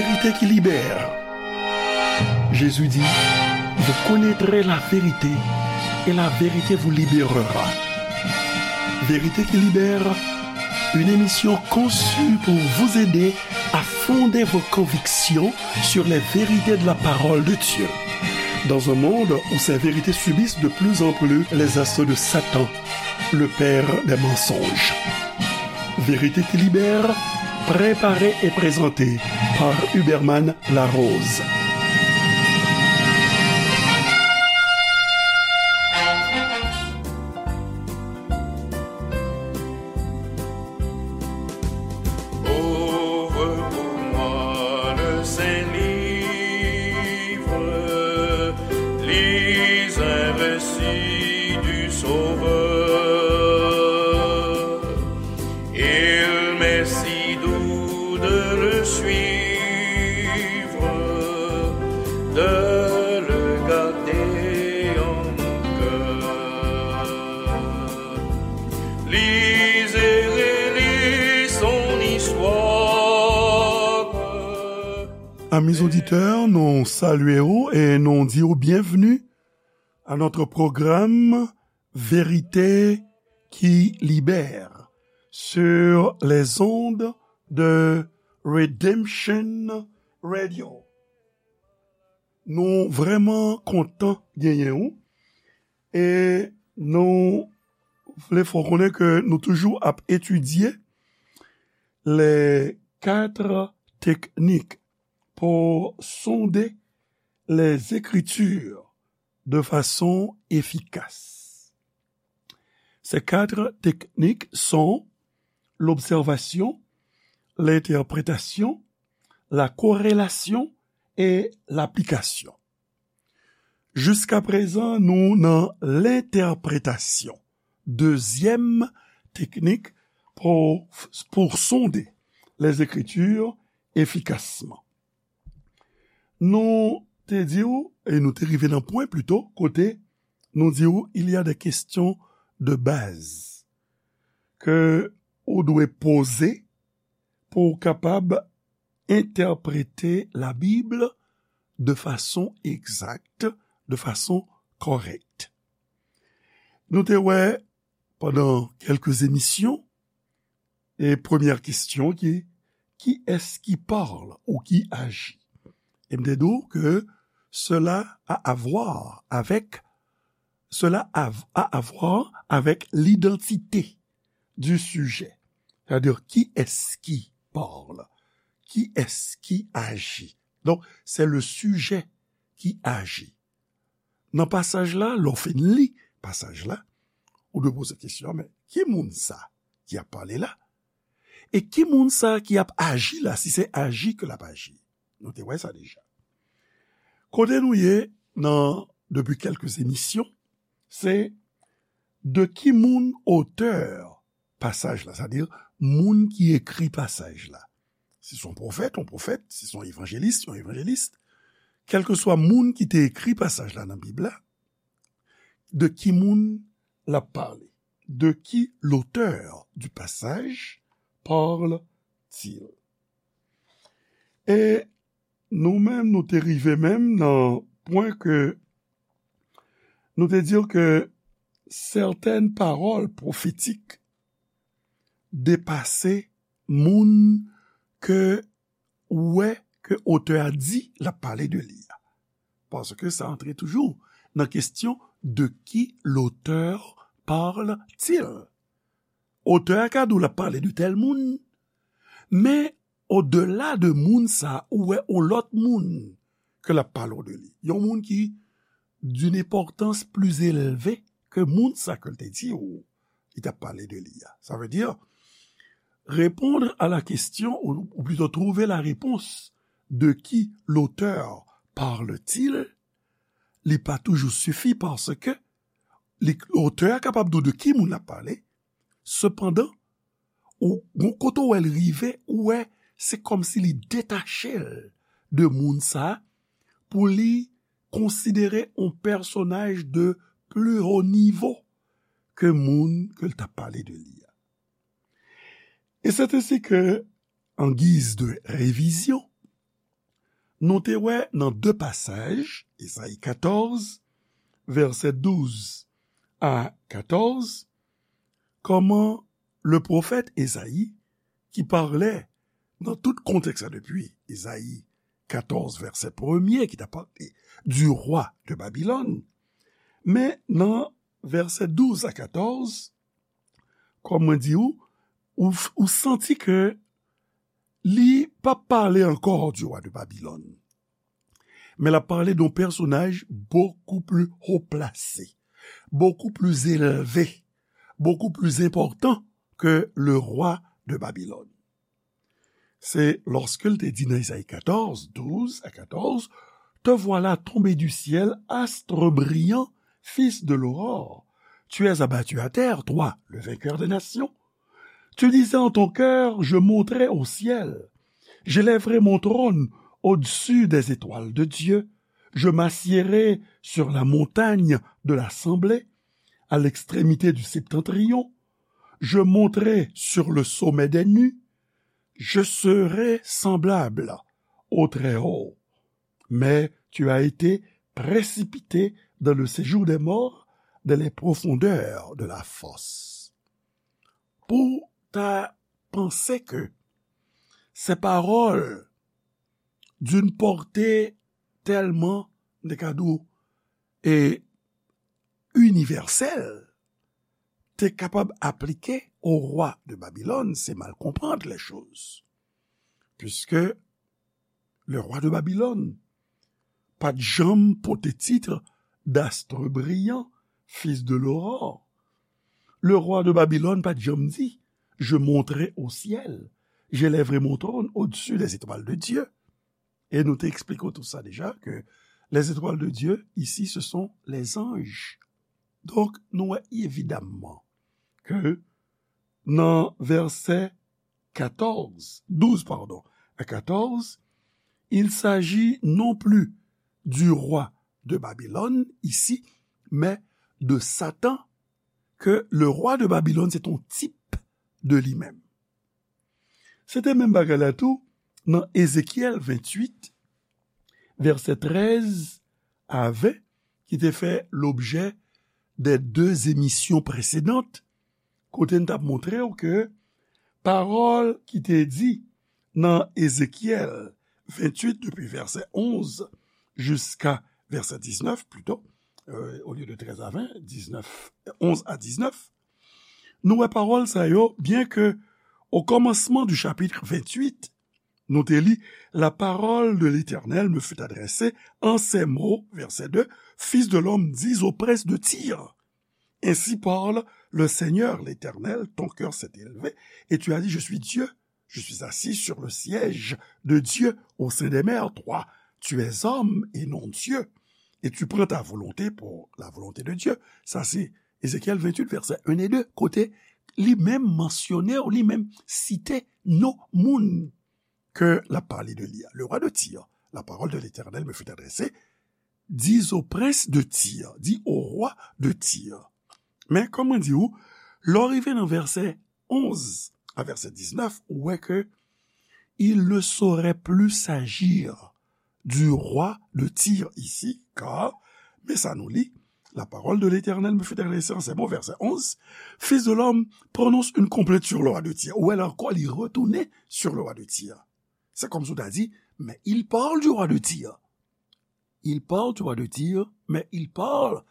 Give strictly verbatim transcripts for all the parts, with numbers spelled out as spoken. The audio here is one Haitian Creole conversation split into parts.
Vérité qui libère. Jésus dit, vous connaîtrez la vérité et la vérité vous libérera. Vérité qui libère, une émission conçue pour vous aider à fonder vos convictions sur les vérités de la parole de Dieu. Dans un monde où ces vérités subissent de plus en plus les assauts de Satan, le père des mensonges. Vérité qui libère, préparée et présentée par Huberman Larose. Ouvre pour moi le saint livre, lis un récit du Sauveur. Il m'est si doux de le suivre, de le garder en mon cœur. Lis et relis son histoire. Amis auditeurs, nou salye w e nou di w byenvni à notre programme Vérité qui libère sur les ondes de Redemption Radio. Nou vrèman kontan genyen w e nou vle fè w konnen ke nou toujou ap etidye les quatre techniques pour sonder les Écritures de façon efficace. Ces quatre techniques sont l'observation, l'interprétation, la corrélation et l'application. Jiskaprezan, nou nan lentèpretasyon. Dezyèm teknik pou, pou sonde les Écritures efficacement. Nou te di w, e nou te rive nan pwen plito, kote nou di w, il y a des questions de base ke ou dwe poze pou w kapab entèprete Labib de fason egzak, de fason kòrèk. Nou te wè pandan kèlke emisyon, e premyè kesyon ki, qui est-ce qui parle ou qui agit? E m te di w ke cela a à voir avec, cela a, a à voir avec l'identité du sujet. C'est-à-dire, qui est-ce qui parle? Qui est-ce qui agit? Donc, c'est le sujet qui agit. Nan pasaj la, lè w fin li pasaj la, ou dwe poze kesyon, men ki moun sa ki ap pale la? E ki moun sa ki ap aji la, si se aji ke l ap aji? Nou te wè sa deja. Kote nou ye nan, depi kèlke emisyon, se de ki moun otè pasaj la, sètadi moun ki ekri pasaj la. Si se yon pwofèt, yon pwofèt, si se yon evanjelis, yon evanjelis, kèlkeswa moun ki te ekri pasaj la nan Bib la, de ki moun l ap pale? De qui l'auteur du passage parle-t-il? E nou menm, nou te rive menm nan pwen ke nou te di ke sètèn pawòl pwofetik depase moun ke ou wè ke otè a di l ap pale de li a. Paske sa antre toujou nan kesyon de qui l'auteur parle-t-il. Otè a ka di w l ap pale de tèl moun, men odela de moun sa, ou wè yon lòt moun ke l ap pale w de li. Yon moun ki d'une importance plus élevée ke moun sa ke l te di w li t ap pale de li a. Ça veut dire, répondre à la question, ou, ou plutôt trouver la réponse, de qui l'auteur parle-t-il, li pa toujou sifi paske li, otè a kapab di w de ki moun l ap pale, sepandan, ou, gon kote w wè l rive, ou wè, se kòmsi li detache l de moun sa a pou li konsidere yon pèsonaj de plus haut niveau ke moun ke l t ap pale de li a. Et c'est ainsi que, en guise de révision, Nou te wè nan de pasaj, Ezayi katòz, vèsè douz a katòz, kòman le pwofèt Ezayi, ki pale nan tout kontèks la depi Ezayi katòz, vèsè premye, ki ta pale du roi de Babylone, men nan vèsè douz a katòz, kòm mwen di ou, ou, ou santi ke li p ap pale ankò du roi de Babylone. Men l ap pale de yon pèsonaj beaucoup plus haut placé, beaucoup plus élevé, beaucoup plus important que le roi de Babylone. Se lòske l te di nan Ezayi katòz, douz a katòz, te voilà tombé du ciel, astre brillant, fils de l'aurore. Tu es abattu à terre, toi, le vainqueur des nations. Tu disais en ton cœur, je monterai au ciel. J'élèverai mon trône au-dessus des étoiles de Dieu. Je m'assiérai sur la montagne de l'assemblée, à l'extrémité du septentrion. Je monterai sur le sommet des nues. Je serai semblable au Très-Haut. Mais tu as été précipité dans le séjour des morts, dans les profondeurs de la fosse. Pou ta panse ke se pawòl d'une portée tellement, m te ka di w, e inivèsèl, te kapab aplike au roi de Babylone, c'est mal comprendre les choses. Puisque le roi de Babylone pa t janm pote tit d'astre brillant, fils de l'aurore. Le roi de Babylone pa t janm di, je monterai au ciel, j'élèverai mon trône au-dessus des étoiles de Dieu. E nou te eksplike w tout sa deja, ke les étoiles de Dieu, ici, ce sont les anges. Donk, nou wè evidamman ke nan vèsè katòz, douz, pardon, à quatorze, il s'agit non plus du roi de Babylone ici, mais de Satan, que le roi de Babylone, c'est un type de lui-même. Se te menm bagay la tou nan Ezekyèl venntuit, vèsè trèz a ven, ki te fè lobjè de de emisyon presedan, kote n t ap montre w ke pawòl ki te di nan Ezekyèl venntuit, depi vèsè onz jiska vèsè diznèf, plito, euh, au lieu de treize à vingt, dix-neuf, onze à dix-neuf, nou wè pawòl sa yo, byen ke au commencement du chapitre vingt-huit, nou te li, la parole de l'Éternel me fut adressée en ces mots, verset deux, Fils de l'homme, dis au prince de Tyr, ainsi parle le Seigneur l'Éternel, ton cœur s'est élevé, et tu as dit, je suis Dieu, je suis assis sur le siège de Dieu au sein des mers. Toi, tu es homme et non Dieu, et tu prends ta volonté pour la volonté de Dieu. Sa se Ezekyèl venntuit, vèsè en e de, kote li menm mansyone, ou li menm site non moun ke l ap pale de li a. Le roi de Tyr, la parole de l'Éternel me fut adressée, dis au prince de Tyr, dis au roi de Tyr. Men, kòm mwen di w, lè w rive nan vèsè onz a vèsè diznèf, ou wè ke il ne saurait plus s'agir du roi de Tyr ici, car, men sa nou li, la parole de l'Éternel me fut adressée en ces mots, verset onze, Fils de l'homme, prononce une complainte sur le roi de Tyr. Ou wè la ankò, li retounen sur le roi de Tyr. C'est comme si w ta di, mais il parle du roi de Tyr. Il parle du roi de Tyr, mais il parle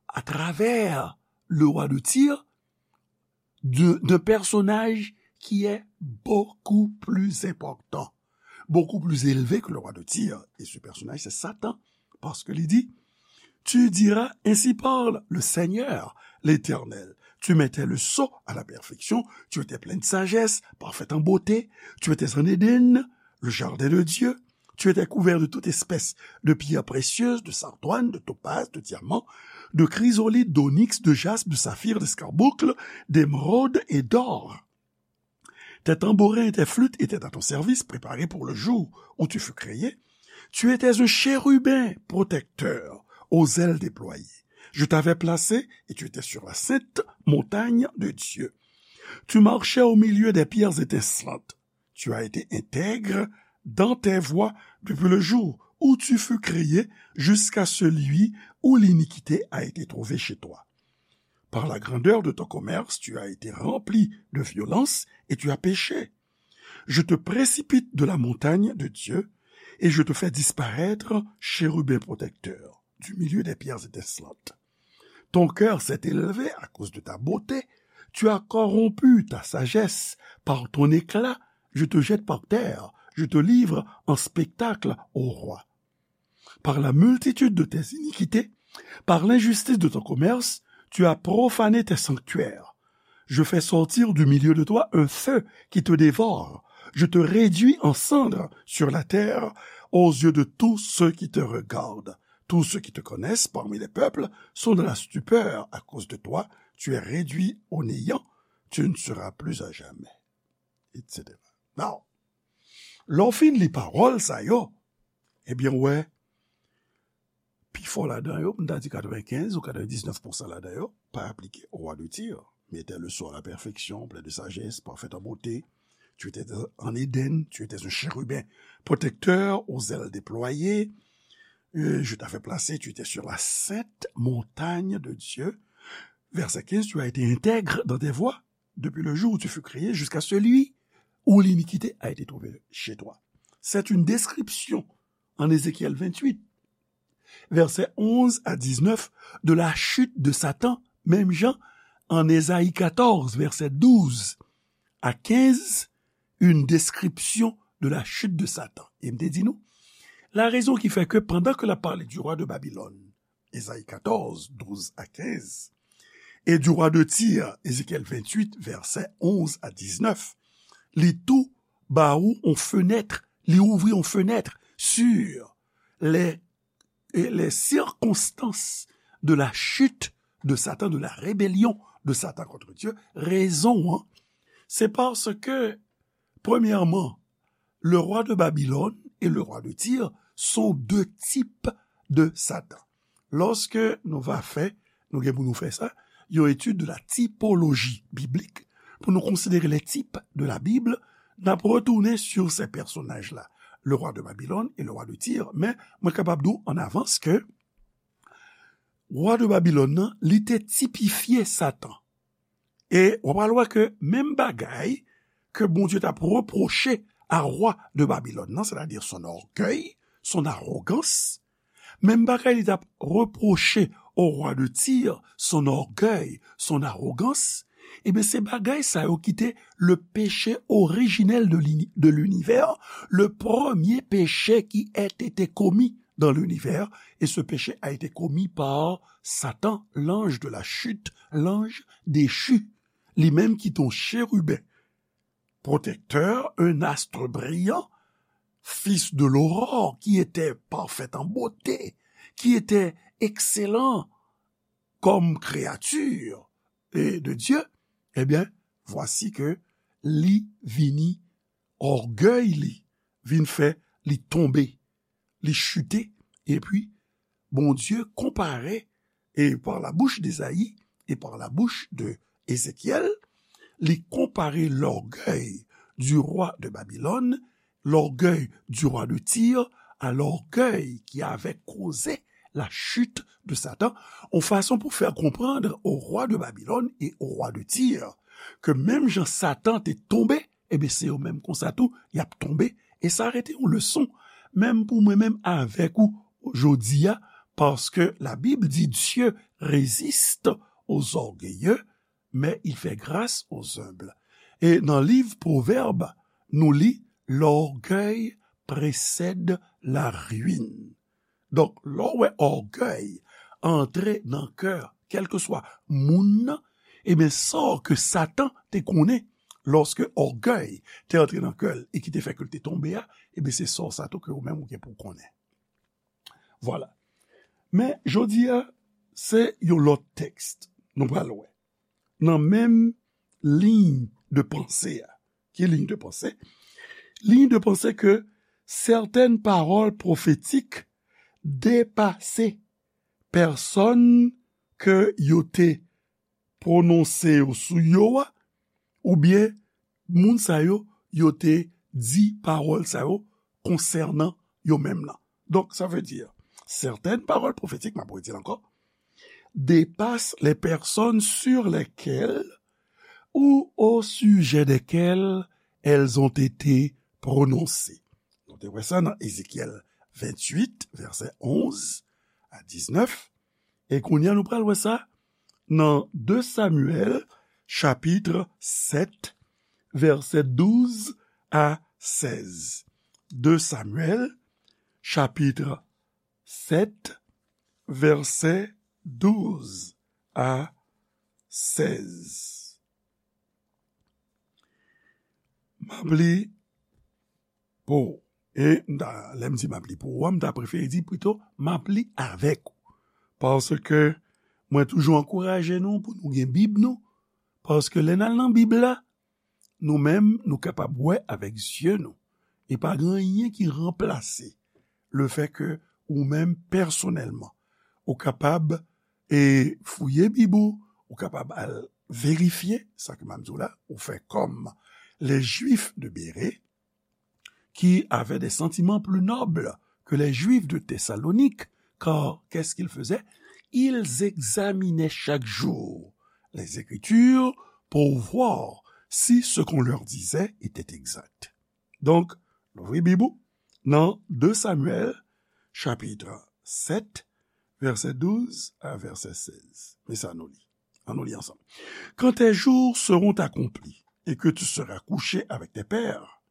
à travers le roi de Tyr de, d'un personnage qui est beaucoup plus important, beaucoup plus élevé que le roi de Tyr. Et ce personnage, c'est Satan. Parce que il dit, tu diras, ainsi parle le Seigneur, l'Éternel. Tu mettais le sceau à la perfection, tu étais plein de sagesse, parfaite en beauté, tu étais en Éden, le jardin de Dieu, tu étais couvert de toute espèce de pierres précieuses, de sardoines, de topazes, de diamants, de chrysolites, d'onyx, de jaspe, de saphir, d'escarboucle, d'émeraude et d'or. Tes tambourins et tes flûtes étaient à ton service, préparés pour le jour où tu fus créé. Tu étais un chérubin protecteur, aux ailes déployées. Je t'avais placé et tu étais sur la sainte montagne de Dieu. Tu marchais au milieu des pierres étincelantes. Tu as été intègre dans tes voies depuis le jour où tu fus créé jusqu'à celui où l'iniquité a été trouvée chez toi. Par la grandeur de ton commerce, tu as été rempli de violence et tu as péché. Je te précipite de la montagne de Dieu et je te fais disparaître, chérubin protecteur, du milieu des pierres étincelantes. Ton cœur s'est élevé à cause de ta beauté, tu as corrompu ta sagesse, par ton éclat, je te jette par terre, je te livre en spectacle au roi. Par la multitude de tes iniquités, par l'injustice de ton commerce, tu as profané tes sanctuaires. Je fais sortir du milieu de toi un feu qui te dévore. Je te réduis en cendres sur la terre aux yeux de tous ceux qui te regardent. Tous ceux qui te connaissent parmi les peuples sont dans la stupeur à cause de toi. Tu es réduit au néant. Tu ne seras plus à jamais, et cetera. Now, lè w fin li pawòl sa yo, ebyen, w wè, pifò ladan yo, m ta di katrevenkenz ou katrevendiznèf pousan ladan yo, pa aplike au roi de Tyr. Mais était le sort à la perfection, plein de sagesse, parfait en beauté. Tu étais en Éden, tu étais un chérubin protecteur aux ailes déployées. Euh, je t'avais placé, tu étais sur la sainte montagne de Dieu. Verset quinze, tu as été intègre dans tes voies depuis le jour où tu fus créé jusqu'à celui où l'iniquité a été trouvée chez toi. C'est une description en Ézéchiel vingt-huit, versets onze à dix-neuf, de la chute de Satan, menm jan en Ésaïe quatorze, verset douze à quinze, une description de la chute de Satan. E m te di nou, la raison qui fait que pendant que la parlé du roi de Babylone, Ésaïe quatorze, douze à quinze, et du roi de Tyr, Ézéchiel vingt-huit, versets onze à dix-neuf, li tou ba ou on fenèt, li ouvri on fenèt sur les, les circonstances de la chute de Satan, de la rébellion de Satan contre Dieu. Rezon an, se paske, premyèman, le roi de Babylone et le roi de Tyr sont deux types de Satan. Lòske nou va fè, nou gen pou nou fè sa, yon etid de la tipoloji biblik, pou nou konsidere les types de la Bible, n ap retounen sur ces personnages-là, le roi de Babylone et le roi de Tyr. Men, mwen kapab di w an avans ke roi de Babylone nan, li te tipifye Satan. E w pral wè ke menm bagay ke Bondye t ap repwoche a rwa de Babilòn nan, sètadi son ògèy, son awogans, menm bagay li t ap repwoche o rwa de Tir, son ògèy, son awogans, ebyen, se bagay sa yo ki te le péché originel de l'uni-, de l'univers, le premier péché qui ait été commis dans l'univers, et ce péché a été commis par Satan, l'ange de la chute, l'ange déchu, li menm ki te yon chérubin protecteur, un astre brillant, fils de l'aurore, qui était parfait en beauté, qui était excellent comme créature, et de Dieu, ebyen, vwasi ke li vini, ògèy li vin fè li tonbe, li chite, epi Bondye konpare, et par la bouche d'Ésaïe et par la bouche de Ézéchiel, li konpare l'orgueil du roi de Babylone, l'orgueil du roi de Tyr, à l'orgueil qui avait causé la chute de Satan, yon fason pou fè konprann o rwa de Babilòn e o rwa de Tir ke menm jan Satan te tonbe, ebyen, se yo menm konsa tou, y ap tonbe. E sa rete yon leson, menm pou mwen menm avèk ou jodi a, paske la Bib di, Dieu résiste aux orgueilleux, mais il fait grâce aux humbles. E nan liv Pwovèb, nou li, l'orgueil précède la ruine. Donk, lè w wè ògèy antre nan kè kèlkeswa moun nan, ebyen, sa ke Satan te konnen, lòske ògèy te antre nan kè l e ki te fè ke l te tonbe a, ebyen, se sa sa tou ke ou menm ou gen pou w konnen. Vwala. Men, jodi a, se yon lòt tèks nou pral wè. Nan menm liy de panse a. Ki liy de panse? Liy de panse ke sètèn pawòl pwofetik depase pèsòn ke yo te pwononse yo sou yo a, oubyen moun sa yo, yo te di pawòl sa yo konsènan yo menm nan. Donk, sa vle di, certaines paroles prophétiques, m ap redi l ankò, dépassent les personnes sur lesquelles ou au sujet desquelles elles ont été prononcées. Nou te wè sa nan Ezekyèl venntuit, vèsè onz a diznèf, e kounye a nou pral wè sa nan de Samyèl, chapit sèt, vèsè douz a sèz. De Samyèl, chapit sèt, vèsè douz a sèz. M ap li pou ou. E m ta, lè m di m ap li pou ou a, m ta prefere di pito, m ap li avèk ou. Paske mwen toujou ankouraje nou pou nou gen Bib nou. Paske lè n al nan Bib la, nou menm, nou kapab wè avèk zye nou. E pa gen anyen ki ranplase lefètke ou menm pèsonèlman, ou kapab, e, fouye Bib ou, ou kapab al verifye, sa ke m ap di w la, ou fè kòm les Juifs de Bérée, qui avaient des sentiments plus nobles que les Juifs de Thessalonique, car qu'est-ce qu'ils faisaient ? Ils examinaient chaque jour les Écritures pour voir si ce qu'on leur disait était exact. Donk, louvri Bib ou nan de Samyèl, chapit sèt, vèsè douz a vèsè sèz. Men sa nou li. Ann nou li ansanm. Quand tes jours seront accomplis et que tu seras couché avec tes pères,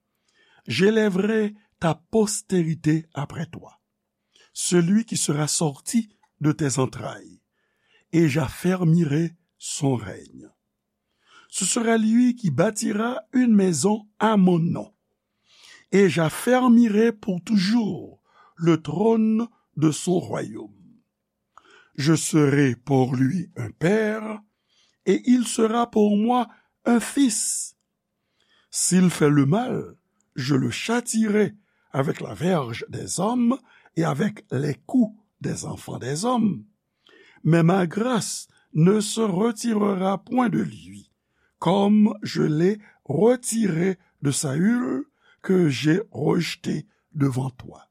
j'élèverai ta postérité après toi, celui qui sera sorti de tes entrailles, et j'affermirai son règne. Ce sera lui qui bâtira une maison à mon nom, et j'affermirai pour toujours le trône de son royaume. Je serai pour lui un père, et il sera pour moi un fils. S'il fait le mal, je le châtierai avec la verge des hommes et avec les coups des enfants des hommes. Mais ma grâce ne se retirera point de lui, comme je l'ai retirée de Saül, que j'ai rejeté devant toi.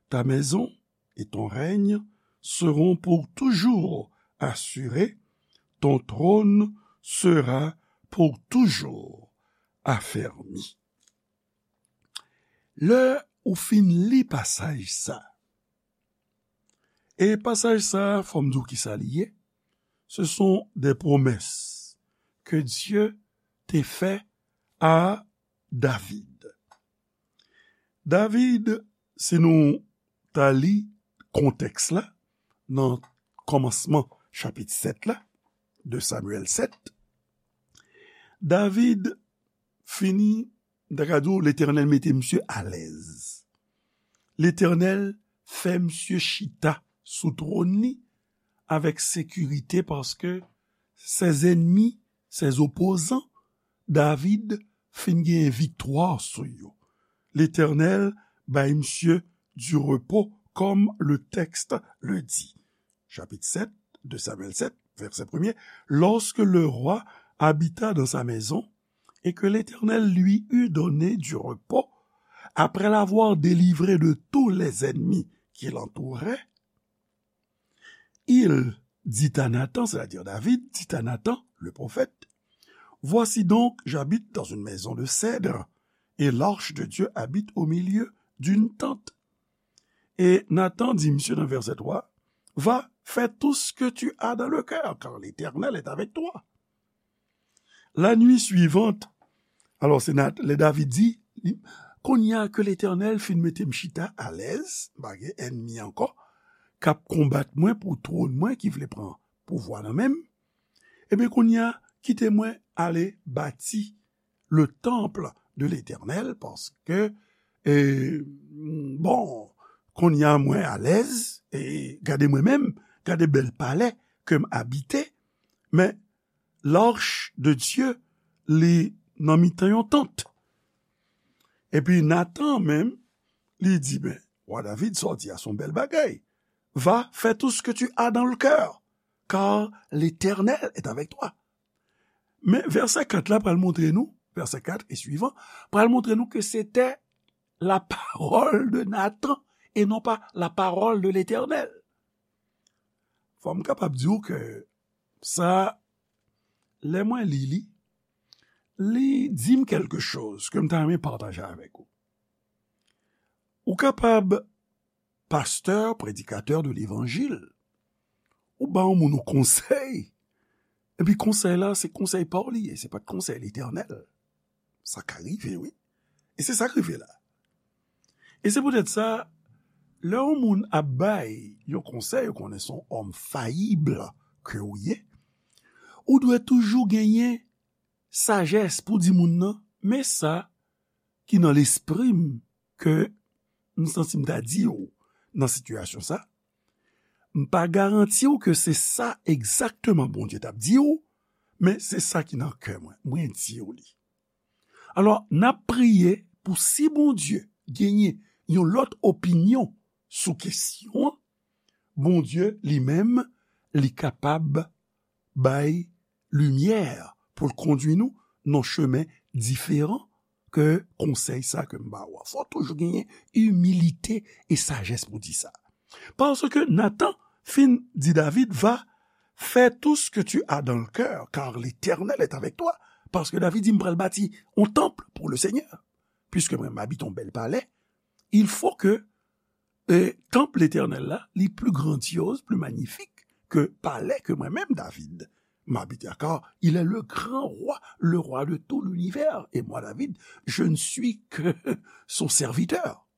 Ta maison et ton règne seront pour toujours assurés, ton trône sera pour toujours affermi. Lè ou fin li pasaj sa, e pasaj sa, fò m di w kisa li ye, ce sont des promesses que Dieu te fait à David. David, si nou ta li kontèks la, nan kòmansman chapit sèt la, de Samyèl sèt, David fini, m ta ka di w, Letènèl mete misye alèz. Letènèl fè misye chita sou twòn li avèk sekirite, paske ses ennemis, ses opposants, David fin gen viktwa sou yo. Letènèl bay misye du repos, comme le texte le dit. Chapitre sept de Samuel sept, verset premier. Lorsque le roi habita dans sa maison et que l'Éternel lui eut donné du repos, après l'avoir délivré de tous les ennemis qui l'entouraient, il dit à Nathan, c'est-à-dire David, dit à Nathan, le prophète, voici donc, j'habite dans une maison de cèdre, et l'arche de Dieu habite au milieu d'une tente. E Nathan di misye nan vèsè twa, va, fais tout ce que tu as dans le cœur, car l'Éternel est avec toi. La nuit suivante, alò se Nat, lè David di, kounye a ke Letènèl fin mete m chita alèz, m pa gen ènmi ankò, k ap konbat mwen pou twòn mwen, ki vle pran pouvwa nan men m, ebyen kounye a, kite mwen ale bati le temple de l'Éternel, paske, e, bon, kounye a mwen alèz, e gade mwen menm, gade bèl palè ke m abite, men l'arche de Dieu, li nan mitan yon tant. Epi Nathan menm, li di, ben, wa David, sa w di a se yon bèl bagay. Va, fais tout ce que tu as dans le cœur, car l'Éternel est avec toi. Men vèsè kat la pral montre nou, vèsè kat e swivan, pral montre nou ke se te la parole de Nathan et non pas la parole de l'Éternel. Fò m kapab di w ke sa, lè mwen li li, li di m kèlke choz ke m ta renmen pataje avèk ou. Ou kapab pastè, predikatè de levanjil, ou ba yon moun yon konsèy, epi konsèy la, se konsèy pa w li ye, se pa t konsèy Letènèl. Sa ka rive, wi. E se sa k rive la. E se poutèt sa, lè yon moun ap bay yon konsèy, ou konnen se yon òm fayib ke w ye, ou dwe toujou genyen sajès pou di moun nan, men sa ki nan lespri m ke m santi m ta di w nan sitiyasyon sa, m pa garanti w ke se sa egzakteman Bondye t ap di w, men se sa ki nan kè mwen, mwen di w li. Alò, n ap priye pou si Bondye genyen yon lòt opinyon sou kesyon an, Bondye li menm, li kapab bay limyè pou l kondui nou nan chemen diferan ke konsèy sa ke m ba w a. Fò toujou genyen imilite e sajès pou di sa. Paske Nathan fin di David, va, fais tout ce que tu as dans le cœur, car l'Éternel est avec toi. Paske David di, m pral bati yon tanp pou le Seigneur. Puisque mwen, m abite yon bèl palè, il faut que e tanp Letènèl la, li pli grandyoz, pli manyifik ke palè ke mwen menm, David, m abite a, car il est le grand roi, le roi de tout l'univers, et moi, David, je ne suis que son serviteur.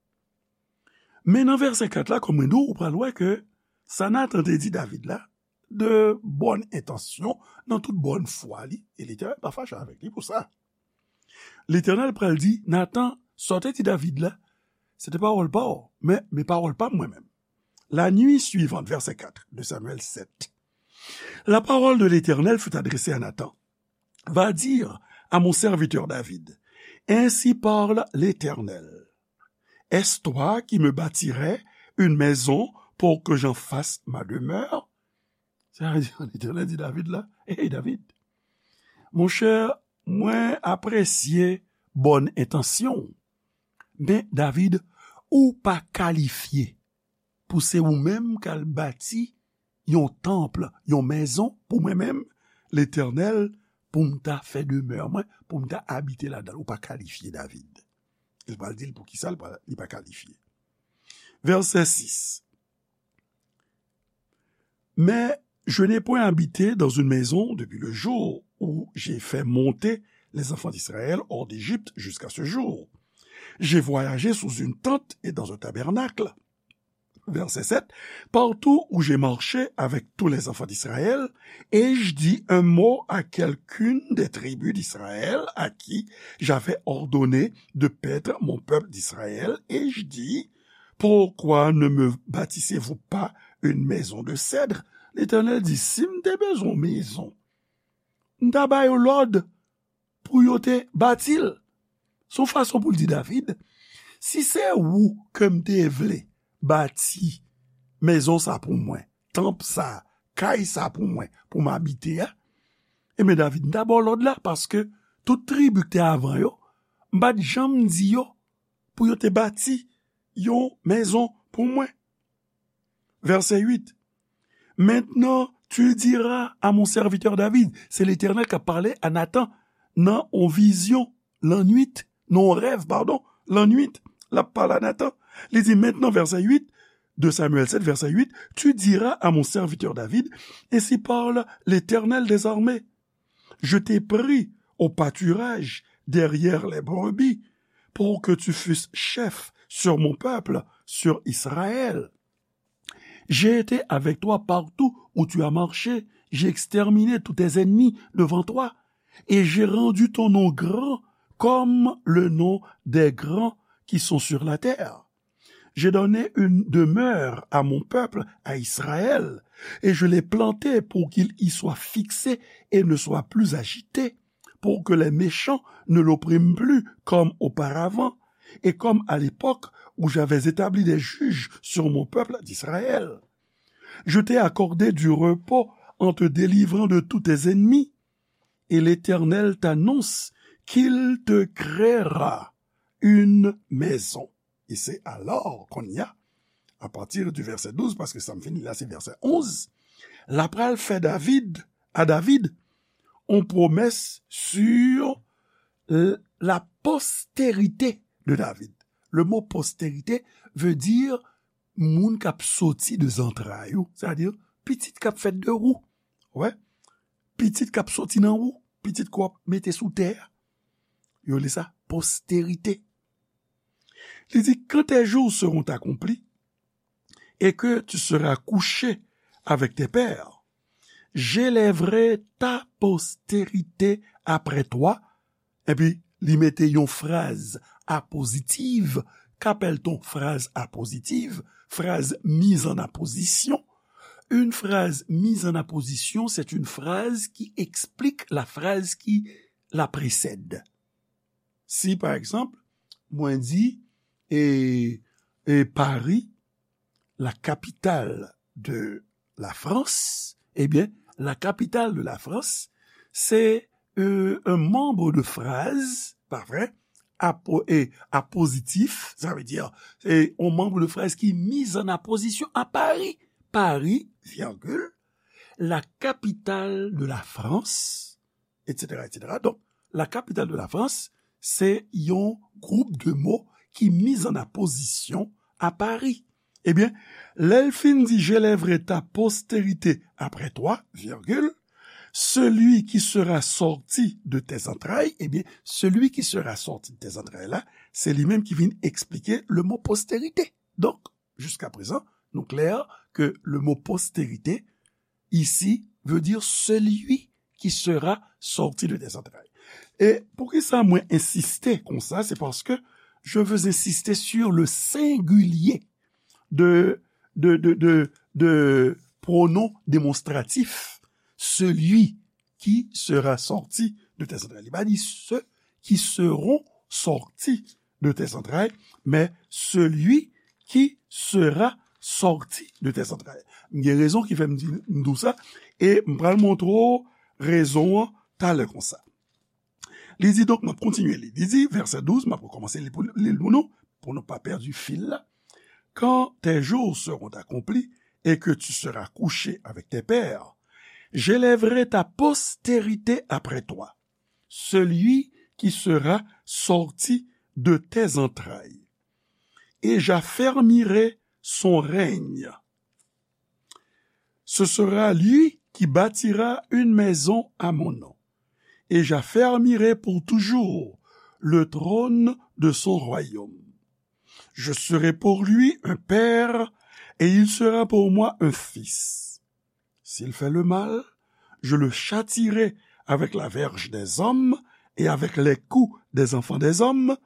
Men nan vèsè kat la, kòm mwen di w, ou pral wè ke sa Nathan te di David la, de bòn entansyon, nan tout bòn fwa li, e Letènèl pa fache avèk li pou sa. Letènèl pral di, Nathan, sa w te di David la, se te pawòl pa w, men, men pawòl pa m mwen menm. La nuit suivante, verset quatre de Samuel sept, la parole de l'Éternel fut adressée à Nathan. Va dire à mon serviteur David, ainsi parle l'Éternel. Est-ce toi qui me bâtirais une maison pour que j'en fasse ma demeure? Sa vle di, Letènèl di David la, hey David, monchè, mwen apresye bòn entansyon w. Men David, ou pa kalifye pou se ou menm k al bati yon tanp, yon mezon pou mwen menm, Letènèl, pou m ta fè demè mwen, pou m ta abite ladan l. Ou pa kalifye, David. Li pral di l poukisa li pa, li pa kalifye. Verset six. Mais je n'ai point habité dans une maison depuis le jour où j'ai fait monter les enfants d'Israël hors d'Égypte jusqu'à ce jour. J'ai voyagé sous une tente et dans un tabernacle. Verset sept, partout où j'ai marché avec tous les enfants d'Israël, ai-je dit un mot à quelqu'une des tribus d'Israël à qui j'avais ordonné de paître mon peuple d'Israël? Ai-je dit, pourquoi ne me bâtissez-vous pas une maison de cèdre? Letènèl di, si m te bezwen yon mezon, m ta ba yo lòd pou yo te bati l. Se yon fason pou l di David, si se ou ke m te vle bati mezon sa pou mwen, tanp sa, kay sa pou mwen, pou m abite a, ebyen David, m ta ba w lòd la, paske tout tribi ki te avan yo, m pa t janm di yo pou yo te bati yon mezon pou mwen. Verset huit. Maintenant, tu diras à mon serviteur David, se Letènèl k ap pale a Nathan nan yon vizyon lannwit, nan yon rèv, padon, lannwit, l ap pale a Nathan. Li di, maintenant, verset huit de Samuel sept, verset huit, tu diras à mon serviteur David, ainsi parle l'Éternel des armées. Je t'ai pris au pâturage derrière les brebis pour que tu fusses chef sur mon peuple, sur Israël. J'ai été avec toi partout où tu as marché, j'ai exterminé tous tes ennemis devant toi, et j'ai rendu ton nom grand comme le nom des grands qui sont sur la terre. J'ai donné une demeure à mon peuple, à Israël, et je l'ai planté pour qu'il y soit fixé et ne soit plus agité, pour que les méchants ne l'oppriment plus comme auparavant, et comme à l'époque où j'avais établi des juges sur mon peuple d'Israël. Je t'ai accordé du repos en te délivrant de tous tes ennemis, et l'Éternel t'annonce qu'il te créera une maison. E se alò, kounye a, apati di vèsè douz, paske sa m fin li la, se vèsè onz, l ap pral fè David, a David, yon pwomès sur l-, la postérité de David. Le mot postérité veut dire moun k ap soti de zantray ou, sètadi pitit k ap fèt de ou. Wè, pitit k ap soti nan ou, pitit ke w ap mete sou tè a. Yo rele sa postérité. Li di, quand tes jours seront accomplis et que tu seras couché avec tes pères, j'élèverai ta postérité après toi. Epi, li mete yon fraz apozitiv. Qu'appelle-t-on phrase appositive? Phrase mise en apposition. Une phrase mise en apposition, c'est une phrase qui explique la phrase qui la précède. Si, pa egzanp, mwen di, e, e Paris, la capitale de la France, ebyen, la capitale de la France, se, e, un membre de phrase, pa vre, apo-, e, apozitif, sa vle di, se yon membre de phrase ki mise en apposition à Paris. Paris, virgule, la capitale de la France, et cetera, et cetera. Donk, la capitale de la France, se yon gwoup de mo ki mise en apposition à Paris. Ebyen, lè l fin di, j'élèverai ta postérité après toi, virgule, celui qui sera sorti de tes entrailles, ebyen, celui qui sera sorti de tes entrailles la, se li menm ki vin eksplike le mot postérité. Donk, jusqu'à présent, nou klè ke le mot postérité ici veut dire celui qui sera sorti de tes entrailles. E poukisa mwen ensiste konsa? C'est parce que je veux insister sur le singulier de, de, de, de, de pronom démonstratif, celui qui sera sorti de tes entrailles. Li pa di ceux qui seront sortis de tes entrailles, mais celui qui sera sorti de tes entrailles. M gen rezon ki fè m di, m di w sa, e m pral montre w rezon an talè konsa. Li di, donk, m ap kontinye li. Li di, vèsè douz, m ap rekòmanse li pou, li l pou nou, pou nou pa pèdi fil la. Quand tes jours seront accomplis et que tu seras couché avec tes pères, j'élèverai ta postérité après toi, celui qui sera sorti de tes entrailles, et j'affermirai son règne. Ce sera lui qui bâtira une maison à mon nom, et j'affermirai pour toujours le trône de son royaume. Je serai pour lui un père, et il sera pour moi un fils. S'il fait le mal, je le châtierai avec la verge des hommes et avec les coups des enfants des hommes,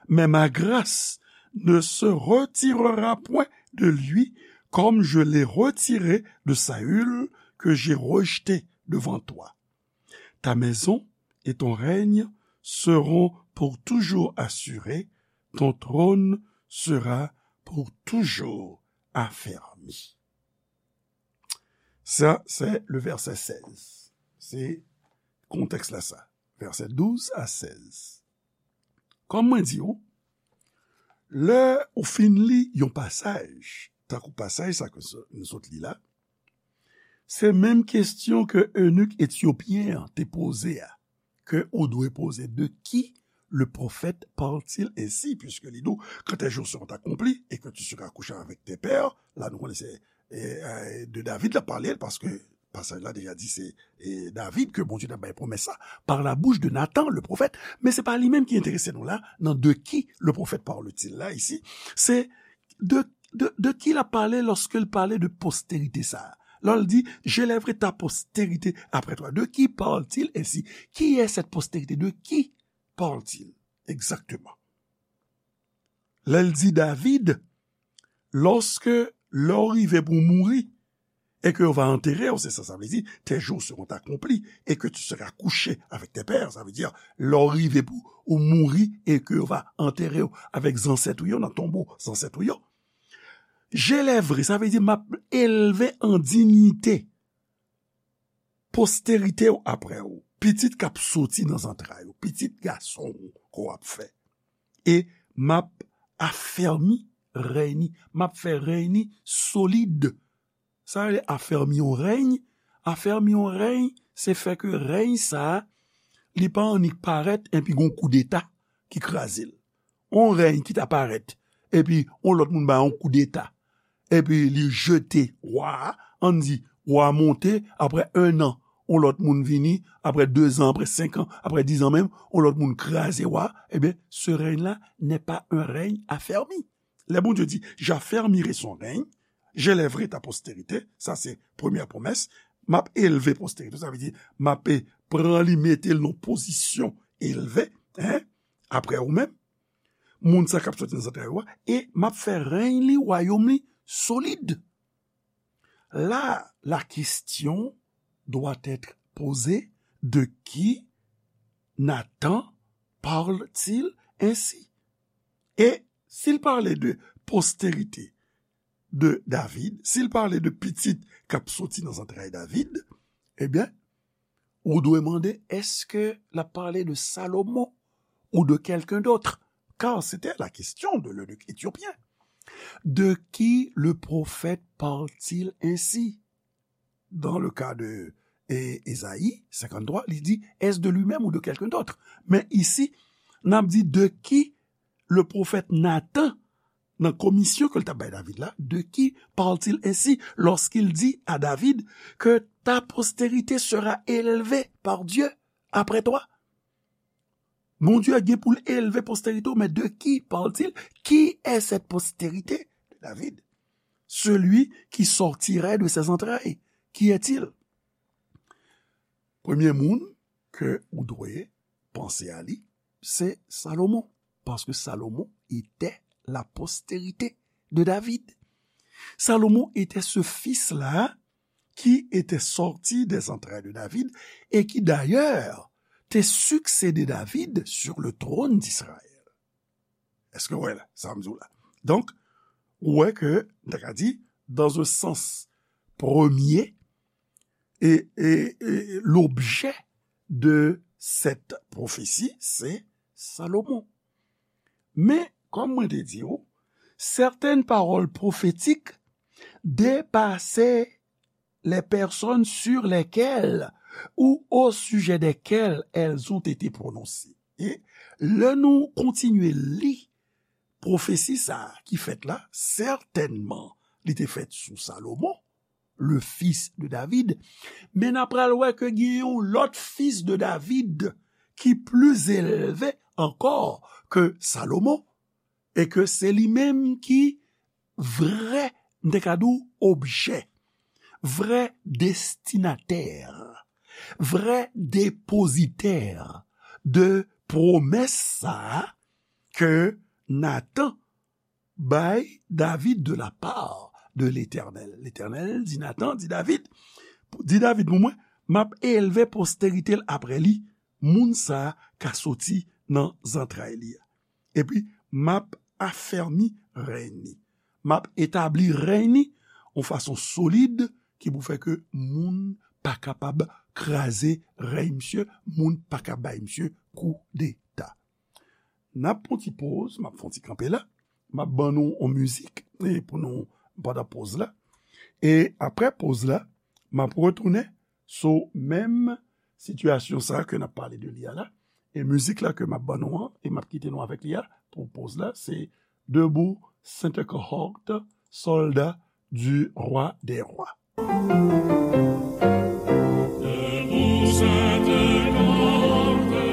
mais ma grâce ne se retirera point de lui, comme je l'ai retirée de Saül, que j'ai rejeté devant toi. Ta maison et ton règne seront pour toujours assurés, ton trône sera pour toujours affermi. Sa, se le vèsè sèz. Se kontèks la sa. Vèsè douz a sèz. Kòm mwen di w, lè ou fin li yon pasaj, tankou pasaj sa ke nou sot li la, se menm kesyon ke enik etyopyen an te poze a, ke ou dwe poze, de qui le prophète parle-t-il ainsi, puisque li di w, quand tes jours seront accomplis et que tu seras couché avec tes pères, la nou konnen se, e, e, de David la pale, paske pasaj la deja di se, e, David ke Bondye t ap bay pwomès sa, par la bouche de Nathan, le prophète, men se pa li menm ki enterese nou la, nan de qui le prophète parle-t-il la, isi, se de, de, de qui l ap pale lòske l pale de postérité sa a. Lè l di, j'élèverai ta postérité après toi. De qui parle-t-il ainsi? Qui est cette postérité? De qui parle-t-il exactement? Lè l di David, lòske lè w rive pou w mouri, et que yo va enterrer, c'est ça, ça veut dire, tes jours seront accomplis, et que tu seras couché avec tes pères, ça veut dire, lè w rive pou ou mouri, et que yo va enterrer avèk zansèt ou yo, nan tonbo zansèt ou yo. J'élèverai, sa vle di, m ap elve an diyite postérité w apre w, pitit k ap soti nan zantray ou, pitit gason w ke w ap fè. E m ap afèmi rèy ni. M ap fè rèy ni solid. Sa yo rele afèmi yon rèy. Afèmi yon rèy, se fè ke rèy sa a, li pa annik parèt epi gon koudeta ki kraze l. Yon rèy ki ta parèt, epi yon lòt moun ba yon koudeta, epi li jete wa a, ann di, wa a monte, apre en an, yon lòt moun vini, apre de zan, apre senk an, apre diz an menm, yon lòt moun kraze wa a, ebyen, ce règne-là n'est pas un règne affermi. Lè Bondye di, j'affermirai son règne, j'élèverai ta postérité, sa se premyè pwomès, m ap elve posterite, sa vle di, m ap pran li, mete l nan pozisyon elve, en, apre ou menm, moun sa k ap soti nan zantray ou a, e m ap fè rèy li, wayòm li, solid. Là, la question doit être posée, de qui Nathan parle-t-il ainsi? Et s'il parlait de postérité de David, s'il parlait de pitit k ap soti nan zantray David, ebyen, ou dwe mande, est-ce que l ap pale de Salomon ou de quelqu'un d'autre? Car c'était la question de l'eunuque éthiopien. De qui le prophète parle-t-il ainsi? Dans le cas de e, Ezayi senkanntrwa, li di, est-ce de lui-même ou de quelqu'un d'autre? Men isi, n ap di de qui le prophète Nathan, nan komisyon ke l t ap bay David la, de qui parle-t-il ainsi lorsqu'il dit à David que ta postérité sera élevée par Dieu après toi? Bondye gen pou l elve postérité w, mais de qui parle-t-il? Qui est cette postérité de David? Celui qui sortirait de ses entrailles, qui est-il? Premye moun ke ou dwe panse a li, se Salomon, paske Salomon était la postérité de David. Salomon était ce fils-là qui était sorti des entrailles de David et qui d'ailleurs te succédé David sur le trône d'Israël. Èske w wè la, sa m di w la? Donk, ou wè ke, m ta ka di, dans un sens premier, et, et, et l'objet de cette prophétie, c'est Salomon. Men, kòm mwen te di w, certaines paroles prophétiques dépassaient les personnes sur lesquelles ou au sujet desquelles elles ont été prononcées. E lè nou kontinye li pwofesi sa a ki fèt la, sètènman, li te fèt sou Salomon, le fils de David, men n a pral wè ke gen yon lòt fils de David ki pli elve ankò ke Salomon, e ke se li menm ki vrè, m te ka di w, objè, vrè destinatè, vrè depozitè de pwomès sa a ke Natan bay David de la part de Letènèl. Letènèl di Natan, di David, di David pou mwen, m ap elve posterite l apre li, moun sa a ka soti nan zantray li a. Epi, m ap afèmi rèy ni. M ap etabli rèy ni yon fason solid ki pou fè ke moun pa kapab kraze rèy misye, moun pa ka bay misye koudeta. N ap pran ti poz, m ap fè yon ti kanpe la. M ap ban nou yon mizik, e pou nou, pandan poz la. E apre poz la, m ap retounen sou menm sitiyasyon sa a ke n ap pale de li a la. E mizik la ke m ap ban nou an, e m ap kite nou avèk li a, pou poz la, se Debout, Sainte Cohorte, soldats du roi des rois. Debout, Sainte Cohorte,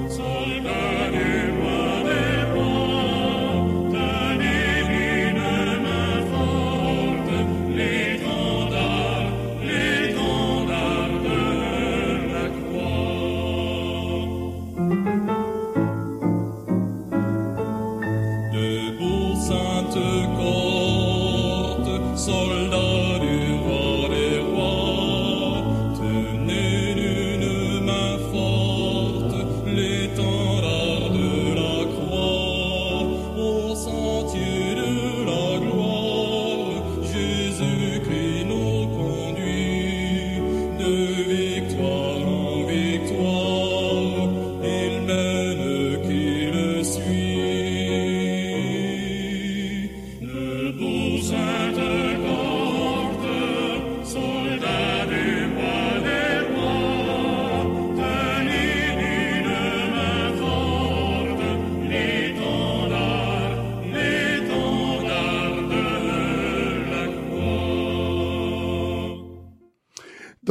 soldats du roi des rois, tenez d'une main forte l'étendard, l'étendard de la croix. Debout, Sainte Cohorte, soldats du roi des rois,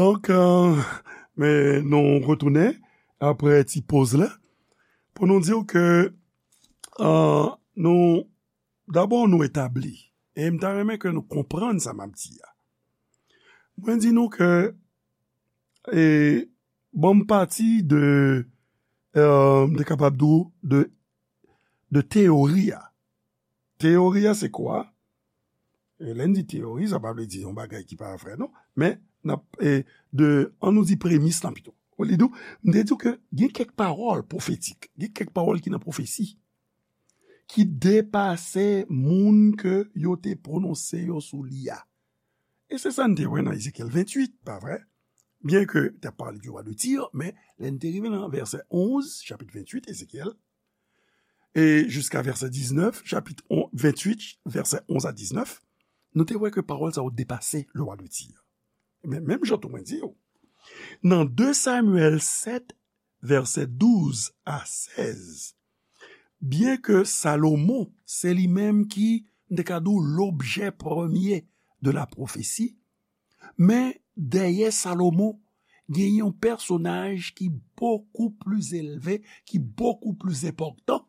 Donk, euh, men nou retounen apre ti poz la pou nou di w ke, euh, nou, dabò nou etabli, e m ta renmen ke nou konprann sa m ap di a. Mwen di nou ke, e, bon, m pati de, euh, m te kapab di w de, de teyori a. Teyori a se kwa? E lè n di teyori, sa pa vle di yon bagay ki pa vre, non. Men, n ap, e, de, an nou di premis lan pito. Ou li di w, m te di w ke gen kèk pawòl pwofetik, gen kèk pawòl ki nan pwofesi, ki depase moun ke yo te pwononse yo sou li a. E se sa n te wè nan Ezekyèl venntuit, pa vre? Byen ke te ap pale di wa de Tir, men lè n te rive nan vèsè onz, chapit venntuit, Ezekyèl, e jiska vèsè diznèf, chapit on, venntuit, vèsè onz a diznèf, nou te wè ke pawòl sa yo depase le wa de Tir. Men menm jan tou mwen di w, nan de Samyèl sèt, vèsè douz a sèz, byen ke Salomon, se li menm ki, m te ka di w, lobjè premye de la pwofesi, men dèyè Salomon, gen yon pèsonaj ki bokou pli elve, ki bokou pli enpòtan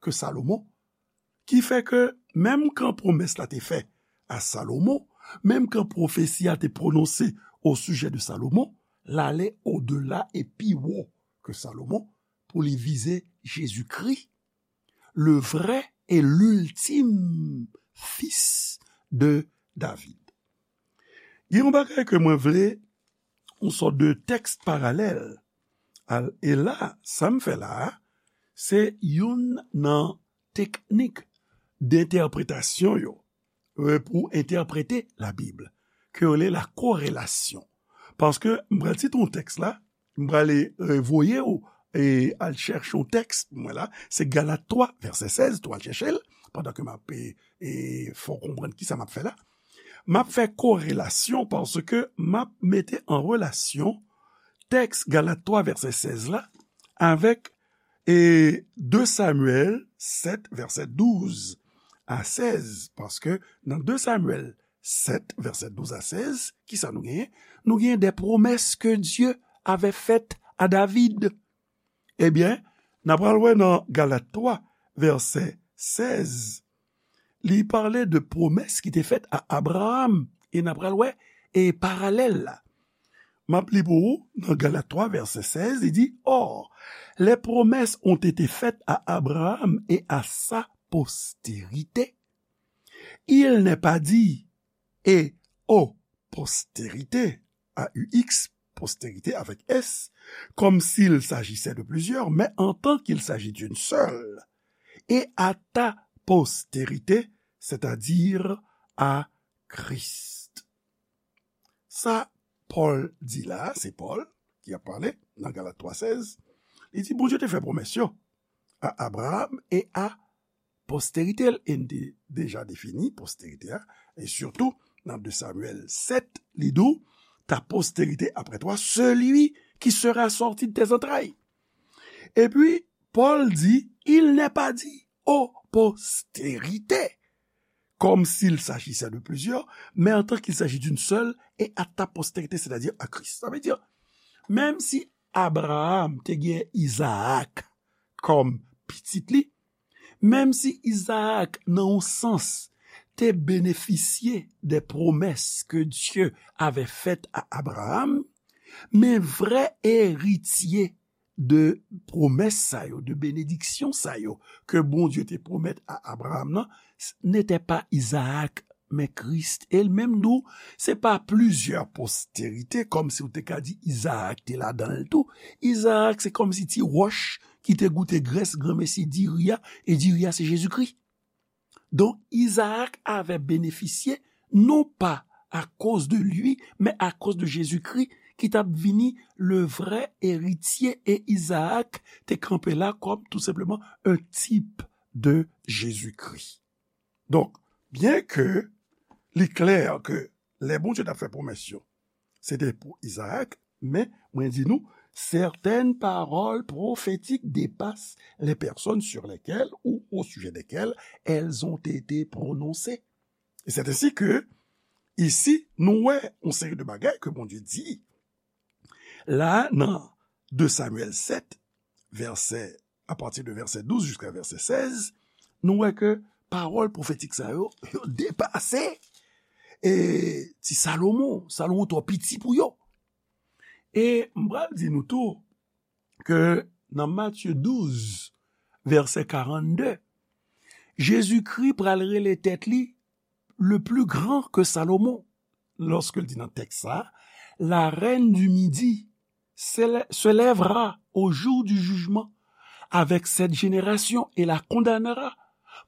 ke Salomon, ki fè ke menm kan pwomès la te fè a Salomon, menm kan pwofesi a te pwononse o sijè de Salomon, l ale odela e pi wo ke Salomon pou li vize Jezikri, le vrai et l'ultime fils de David. Gen yon bagay ke mwen vle, yon sòt de tèks paralèl. Al, e la, sa m fè la a, se youn nan teknik dentèpretasyon yo, e, pou entèprete Labib, ke yo rele la korelasyon. Paske m pral site yon tèks la, m prale, e, voye w, e, al chèche yon tèks pou mwen la, se Galat twa, vèsè sèz, tou al chèche l, pandan ke m ap, e, e, fè w konprann kisa m ap fè la. M ap fè korelasyon paske m ap mete an relasyon tèks Galat twa, vèsè sèz la, avèk, e, de Samyèl sèt, vèsè douz a sèz, paske nan de Samyèl sèt, vèsè douz a sèz, kisa nou genyen? Nou genyen de promès ke Dye avè fèt a David. Ebyen, n a pral wè nan Galat twa, vèsè sèz, li pale de pwomès ki te fèt a Abraram, e n a pral wè, e paralèl la. M ap li pou ou nan Galat twa, vèsè sèz, li di, Or, les promesses ont été faites à Abraham et à sa postérité. Il n'est pas dit, et aux postérités, A U X, postérité avec S, comme s'il s'agissait de plusieurs, mais en tant qu'il s'agit d'une seule, et à ta postérité, c'est-à-dire à Christ. Sa Pòl di la, se Pòl ki ap pale nan Galat twa sèz, li di Bondye te fè pwomès yo a Abraram e a posterite l, e n te deja defini posterite a, e sitou nan de Samyèl sèt, li di w, ta posterite après toi, celui qui sera sorti de tes entrailles. Epi, Pòl di, il n'est pas dit aux postérités, comme s'il s'agissait de plusieurs, mais en tant qu'il s'agit d'une seule, et à ta postérité, c'est-à-dire à Christ. Sa vle di, menm si Abraram te gen Izaak kòm pitit li, menm si Izaak, nan yon sans, te benefisye de promès ke Dye avè fèt a Abraram, men vrè eritye de pwomès sa yo, de benediksyon sa yo ke Bondye te pwomèt a Abraram nan, s-, n'était pas Isaac, men Kris. E l menm tou, se pa plizyè posterite, kòmsi w te ka di Izaak te ladan l tou. Izaak, se kòmsi ti wòch ki te goute grès granmesi diri a, e diri a se Jezikri. Donk, Izaak avè benefisye, non pa akoz de li, men akoz de Jezikri, ki t ap vini le vrè eritye, e Izaak te kanpe la kòm tou senpleman un type de Jésus-Christ. Donk, byen ke li klè ke lè Bondye t ap fè pwomès yo, se te pou Izaak, men mwen di nou, certaines paroles prophétiques dépassent les personnes sur lesquelles ou au sujet desquelles elles ont été prononcées. Et c'est ainsi que, ici, nou wè yon seri de bagay ke Bondye di La, nan de Samyèl sèt, vèsè, apati de vèsè douz jiska vèsè sèz, nou wè ke pawòl pwofetik sa yo, yo depase e ti Salomon. Salomon twò piti pou yo. E m pral di nou tou ke nan Matye douz, vèsè karannde, Jezikri pral rele tèt li le plus grand que Salomon. Lorsque l di nan tèks sa, la reine du midi se lèvra au jour du jugement avec cette génération et la condamnera,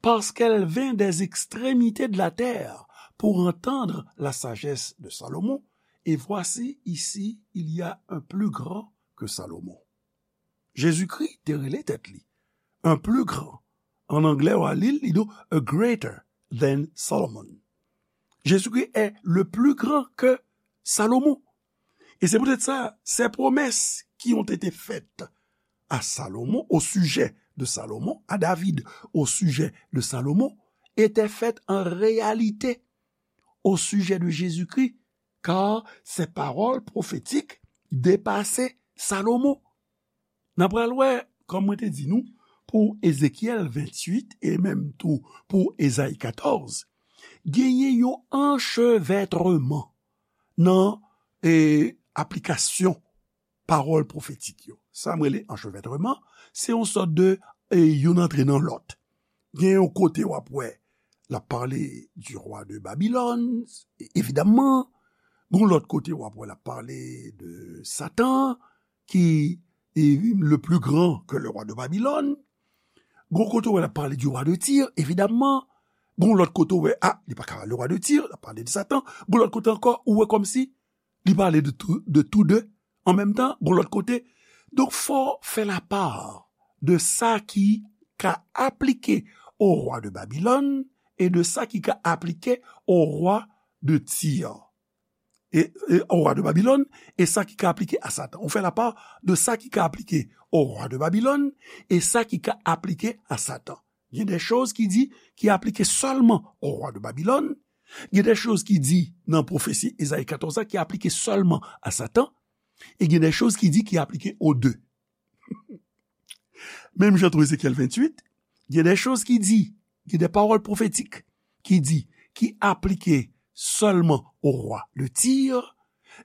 parce qu'elle vint des extrémités de la terre pour entendre la sagesse de Salomon, et voici ici il y a un plus grand que Salomon. Jezikri te rele tèt li un plus grand. An anglè, w a li l, li di a greater than Solomon. Jésus-Christ est le plus grand que Salomon. Et c'est peut-être ça, ces promesses qui ont été faites à Salomon, au sujet de Salomon, à David, au sujet de Salomon, étaient faites en réalité au sujet de Jésus-Christ, car ces paroles prophétiques dépassaient Salomon. N a pral wè, kòm mwen te di nou, pou Ezekyèl venntuit e menm tou pou Ezayi katòz, genyen yon anchevètreman nan e, aplikasyon pawòl pwofetik yo. Sa mwen rele anchevètreman, se yon sòt de e, youn antre nan lòt. Gen yon kote w ap wè l ap pale du roi de Babylone, evidamman. Gon lòt kote w ap wè l ap pale de Satan, ki est le plus grand que le roi de Babylone. Gon kote w wè l ap pale du roi de Tyr, evidamman. Gon lòt kote w wè, a, li pa ka le roi de Tyr, l ap pale de Satan. Gon lòt kote ankò, ou wè kòmsi li pale de tou, de tou de an menm tan, gon lòt kote. Donk, fò fè lapar de sa ki ka aplike o rwa de Babilòn e de sa ki ka aplike o rwa de Tir. E, e o rwa de Babilòn, e sa ki ka aplike a Satan. Ou fè lapar de sa ki ka aplike o rwa de Babilòn e sa ki ka aplike a Satan. Gen de choz ki di ki aplike sèlman o rwa de Babilòn. Gen de choz ki di nan pwofesi Ezayi katòz la ki aplike sèlman a Satan. E gen de choz ki di ki aplike o de. Menm jan tou Ezekyèl venntuit, gen de choz ki di, gen de pawòl pwofetik ki di, ki aplike sèlman o rwa de Tir.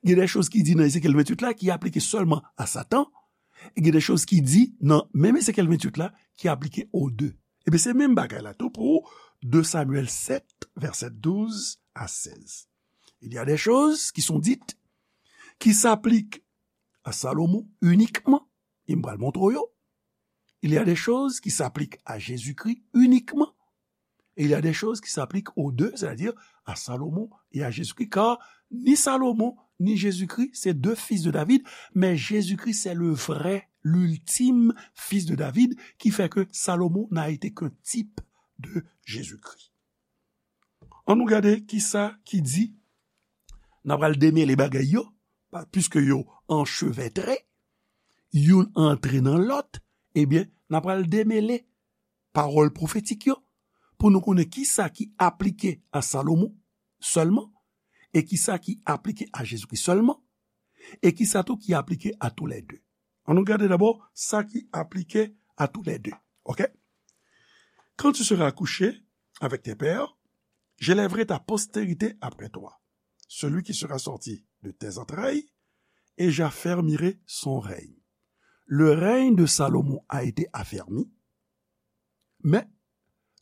Gen de choz ki di nan Ezekyèl venntuit la ki aplike sèlman a Satan. E gen de choz ki di nan menm Ezekyèl venntuit la ki aplike o de. Ebyen, se menm bagay la tou pou de Samyèl sèt, vèsè douz a sèz. Il y a des choses qui sont dites, qui s'appliquent à Salomon uniquement, e m pral montre w yo. Il y a des choses qui s'appliquent à Jésus-Christ uniquement. Et il y a des choses qui s'appliquent aux deux, c'est-à-dire à Salomon et à Jésus-Christ, car ni Salomon, ni Jésus-Christ, c'est deux fils de David, mais Jésus-Christ, c'est le vrai, l'ultime fils de David, qui fait que Salomon n'a été qu'un type de Jésus-Christ. Ann nou gade kisa ki di, n a pral demele bagay yo, pa, piske yo anchevètre, youn antre nan lòt, ebyen, n a pral demele pawòl pwofetik yo, pou nou konnen kisa ki aplike a Salomon sèlman, e kisa ki aplike a Jezikri sèlman, e kisa tou ki aplike a toulède. Ann nou gade dabò sa ki aplike a toulède. Oke? Quand tu seras couché avec tes pères, j'élèverai ta postérité après toi, celui qui sera sorti de tes entrailles, et j'affermirai son règne. Le règne de Salomon a été affermi, mais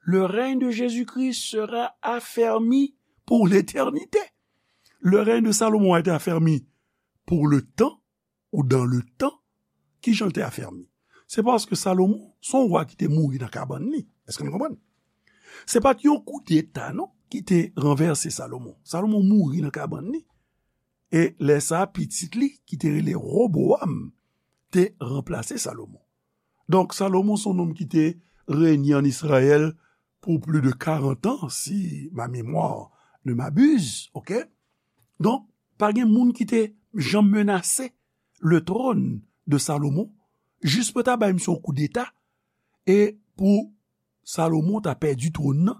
le règne de Jésus-Christ sera affermi pour l'éternité. Le règne de Salomon a été affermi pour le temps ou dans le temps. Ki jan l te afèmi? Se paske Salomon, se yon wa ki te mouri nan kabann li. Èske nou konprann? Se pa t yon koudeta, non, ki te ranvèse Salomon. Salomon mouri nan kabann li. E lè sa a, pitit li, ki te rele Wobowam, te ranplase Salomon. Donk, Salomon se yon nonm ki te renye ann Izrayèl pou plis de karant an, si ma mémoire ne m'abuse, oke? Donk, pa gen moun ki te janm menase le trône de Salomon, jis pou ta bay misye yon koudeta, e pou Salomon ta pèdi twòn nan,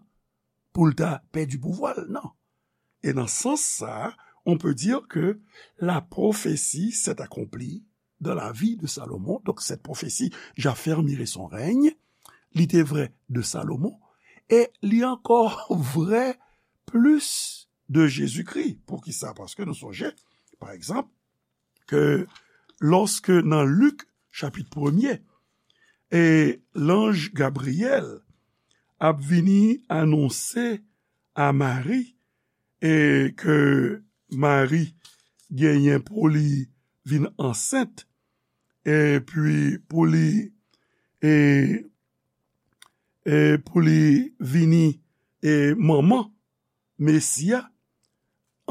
pou l ta pèdi pouvwa l, non. E nan sans sa a, on peut dire que la prophétie s'est accomplie dans la vie de Salomon. Donc, cette prophétie, j'affermirai son règne, li te vrè de Salomon, e li ankò vrè plis de Jezikri. Poukisa? Paske nou sonje, pa egzanp, ke lòske nan Lik, chapit premye, e lanj Gabriyèl ap vini anonse a Mari, e ke Mari genyen pou li vin ansent, epi pou li, e, e pou li vini, e manman Mesi a,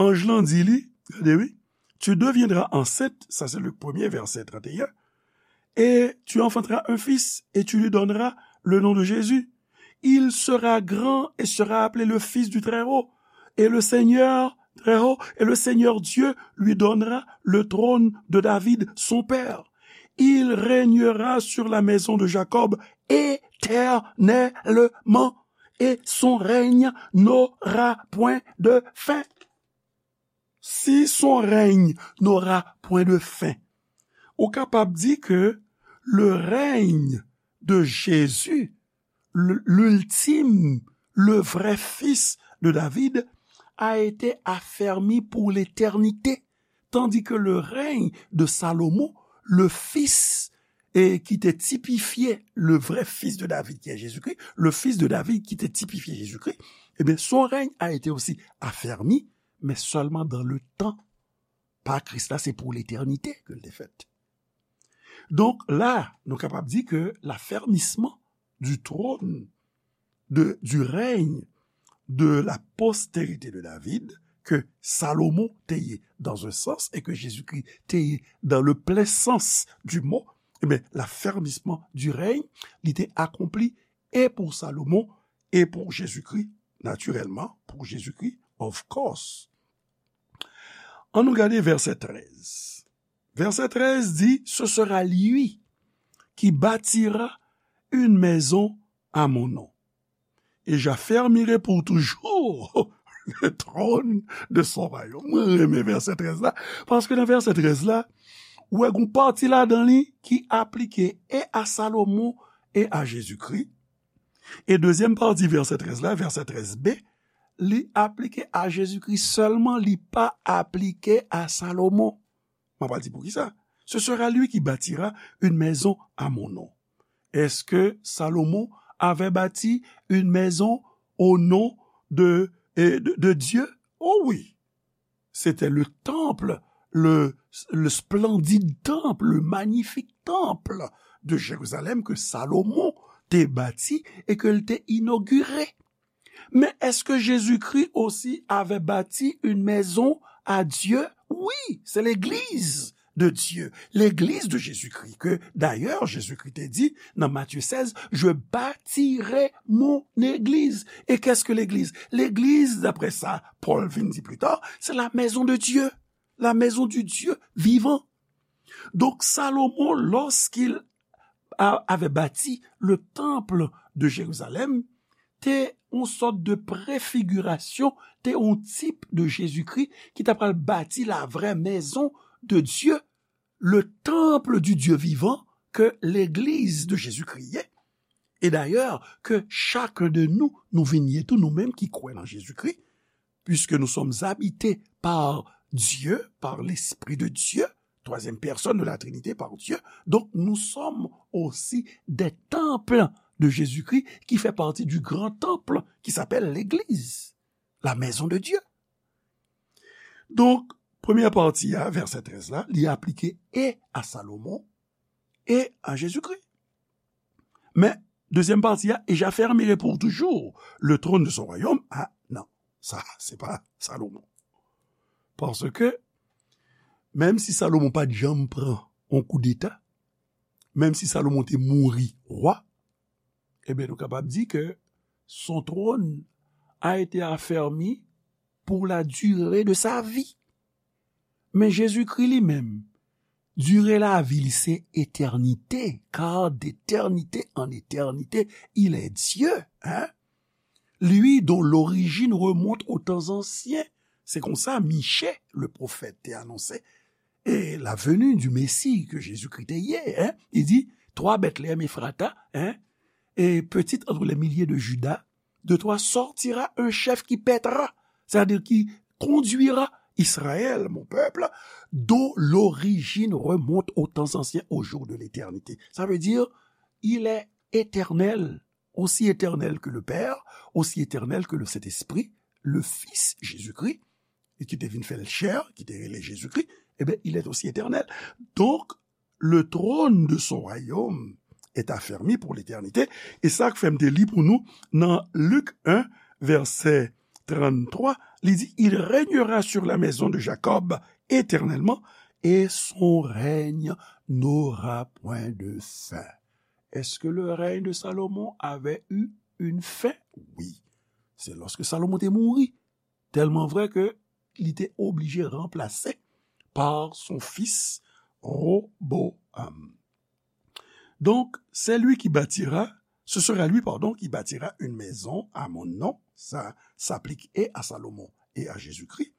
anj lan di li, gade wi, tu deviendras enceinte, ça c'est le premier verset trente et un, et tu enfanteras un fils et tu lui donneras le nom de Jésus. Il sera grand et sera appelé le Fils du Très-Haut. Et le Seigneur, Très-Haut, et le Seigneur Dieu lui donnera le trône de David, son père. Il régnera sur la maison de Jacob éternellement, et son règne n'aura point de fin. Si son règne n'aura point de fin, ou kapab di ke le règne de Jésus, l-, l'ultime, le vrai fils de David, a été affermi pour l'éternité, tandis que le règne de Salomon, le fils, et qui était typifié, le vrai fils de David, qui est Jésus-Christ, le fils de David qui était typifié Jésus-Christ, eh bien, son règne a été aussi affermi, mais seulement dans le temps. Pa Kris la, se pou letènite ke l te fèt. Donk la, nou kapab di ke l'affermissement du trône, de, du règne de la postérité de David, ke Salomon te ye dans un sens et que Jésus-Christ te ye dans le plein sens du mot, eh bien, l'affermissement du règne, li te akonpli e pou Salomon e pou Jezikri, natirèlman, pou Jezikri, of course. Ann nou gade vèsè trèz. Vèsè trèz di, ce sera lui qui bâtira une maison à mon nom. Et j'affermirai pour toujours le trône de son royaume. Mwen renmen vèsè trèz la, paske nan vèsè trèz la, ou wè gon pati ladan li ki aplike e a Salomon e a Jezikri. E dezyèm pati vèsè trèz la, vèsè trèz B, li aplike a Jezikri sèlman, li pa aplike a Salomon. Mwen pral di poukisa. Ce sera lui qui bâtira une maison à mon nom. Est-ce que Salomon avait bâti une maison au nom de, eh, de, de Dieu? Oh oui. C'était le temple, le, le splendide temple, le magnifique temple de Jérusalem que Salomon te bâti et que l te inauguré. Mais est-ce que Jésus-Christ aussi avait bâti une maison à Dieu? Oui, c'est l'église de Dieu, l'église de Jésus-Christ, que d'ailleurs Jésus-Christ te di nan Matthieu seize, je bâtirai mon église. Et qu'est-ce que l'église? L'église, d'après ça, Paul vin di plus tard, c'est la maison de Dieu, la maison du Dieu vivant. Donc Salomon, lorsqu'il a, avait bâti le temple de Jérusalem, te yon sòt de prefigirasyon, te yon tip de Jezikri ki ta pral bati la vraie maison de Dieu, le temple du Dieu vivant, ke legliz de Jezikri ye. E dayè, ke chak de nou, nou vin ye tou, nou menm ki kwè nan Jezikri, puisque nous sommes habités par Dieu, par l'Esprit de Dieu, troisième personne de la Trinité par Dieu, donc nous sommes aussi des temples de Jésus-Christ qui fait partie du grand temple qui s'appelle l'Église, la maison de Dieu. Donk, premyè pati a, vèsè trèz la, li aplike e a Salomon e a Jezikri. Men, dezyèm pati a, et j'affermirai pour toujours le trône de son royaume. A, non, sa, se pa Salomon. Paske, menm si Salomon pa t janm pran yon koudeta, menm si Salomon te mouri wa, ebyen, nou kapab di ke son trône a été affermi pour la durée de sa vie. Men Jezikri li menm, dire lavi li se etènite, car d'éternité en éternité, il est Dieu, hein? Lui dont l'origine remonte aux temps anciens, Se konsa Miche, le pwofèt, te anonse e la venue du Messie ke Jezikri te ye. Hein? Li di, toi, Bethléem Ephrata, hein, et petite entre les milliers de Juda, de toi sortira un chef qui pètera, c'est-à-dire qui conduira Israël, mon peuple, dont l'origine remonte aux temps anciens, aux jours de l'éternité. Ça veut dire, il est éternel, aussi éternel que le Père, aussi éternel que le Saint-Esprit, le Fils Jésus-Christ, et qui te vin fè l chè, ki te rele Jezikri, eh bien, il est aussi éternel. Donc, le trône de son royaume est affermi pour l'éternité. E sa k fè m te li pou nou nan Lik en, vèsè tranntwa, li di, il régnera sur la maison de Jacob éternellement, et son règne n'aura point de fin. Est-ce que le règne de Salomon avait eu une fin? Oui. C'est lorsque Salomon te mouri. Tèlman vrè ke li te oblije ranplase par son fils Roboam. Donc, c'est lui qui bâtira, ce sera lui, pardon, qui bâtira une maison à mon nom. Ça s'applique et à Salomon et à Jésus-Christ.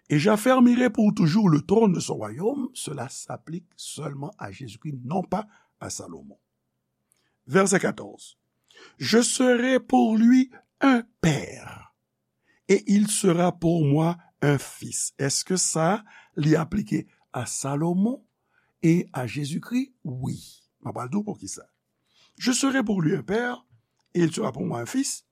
Et j'affermirai pour toujours le trône de son royaume. Cela s'applique seulement à Jésus-Christ, non pas à Salomon. Verset quatorze. Je serai pour lui un père, et il sera pour moi un fils. Èske sa li aplike a Salomon e a Jezikri? Wi. M ap pral di w poukisa. Je serai pour lui un père, et il sera pour moi un fils.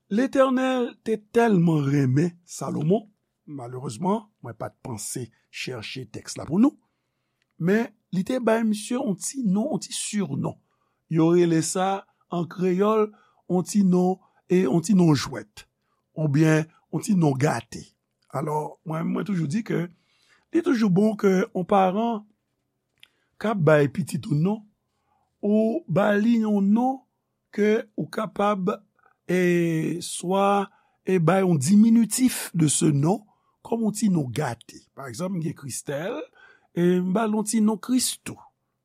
Letènèl te tèlman renmen Salomon, malerezman, mwen pa t panse chèche tèks la pou nou, men li te bay misye yon ti non, yon ti sinon. Yo rele sa an kreyòl yon ti non, e yon ti non jwèt, oubyen yon ti non gate. Alò, mwen, mwen toujou di ke li toujou bon ke yon paran k ap bay pitit ou non, ou ba li yon non ke ou kapab, e, swa, e, bay yon diminitif de ce nom, kòm yon ti non gate. Pa egzanp, m gen Kristèl, e m ba l yon ti non Kristou.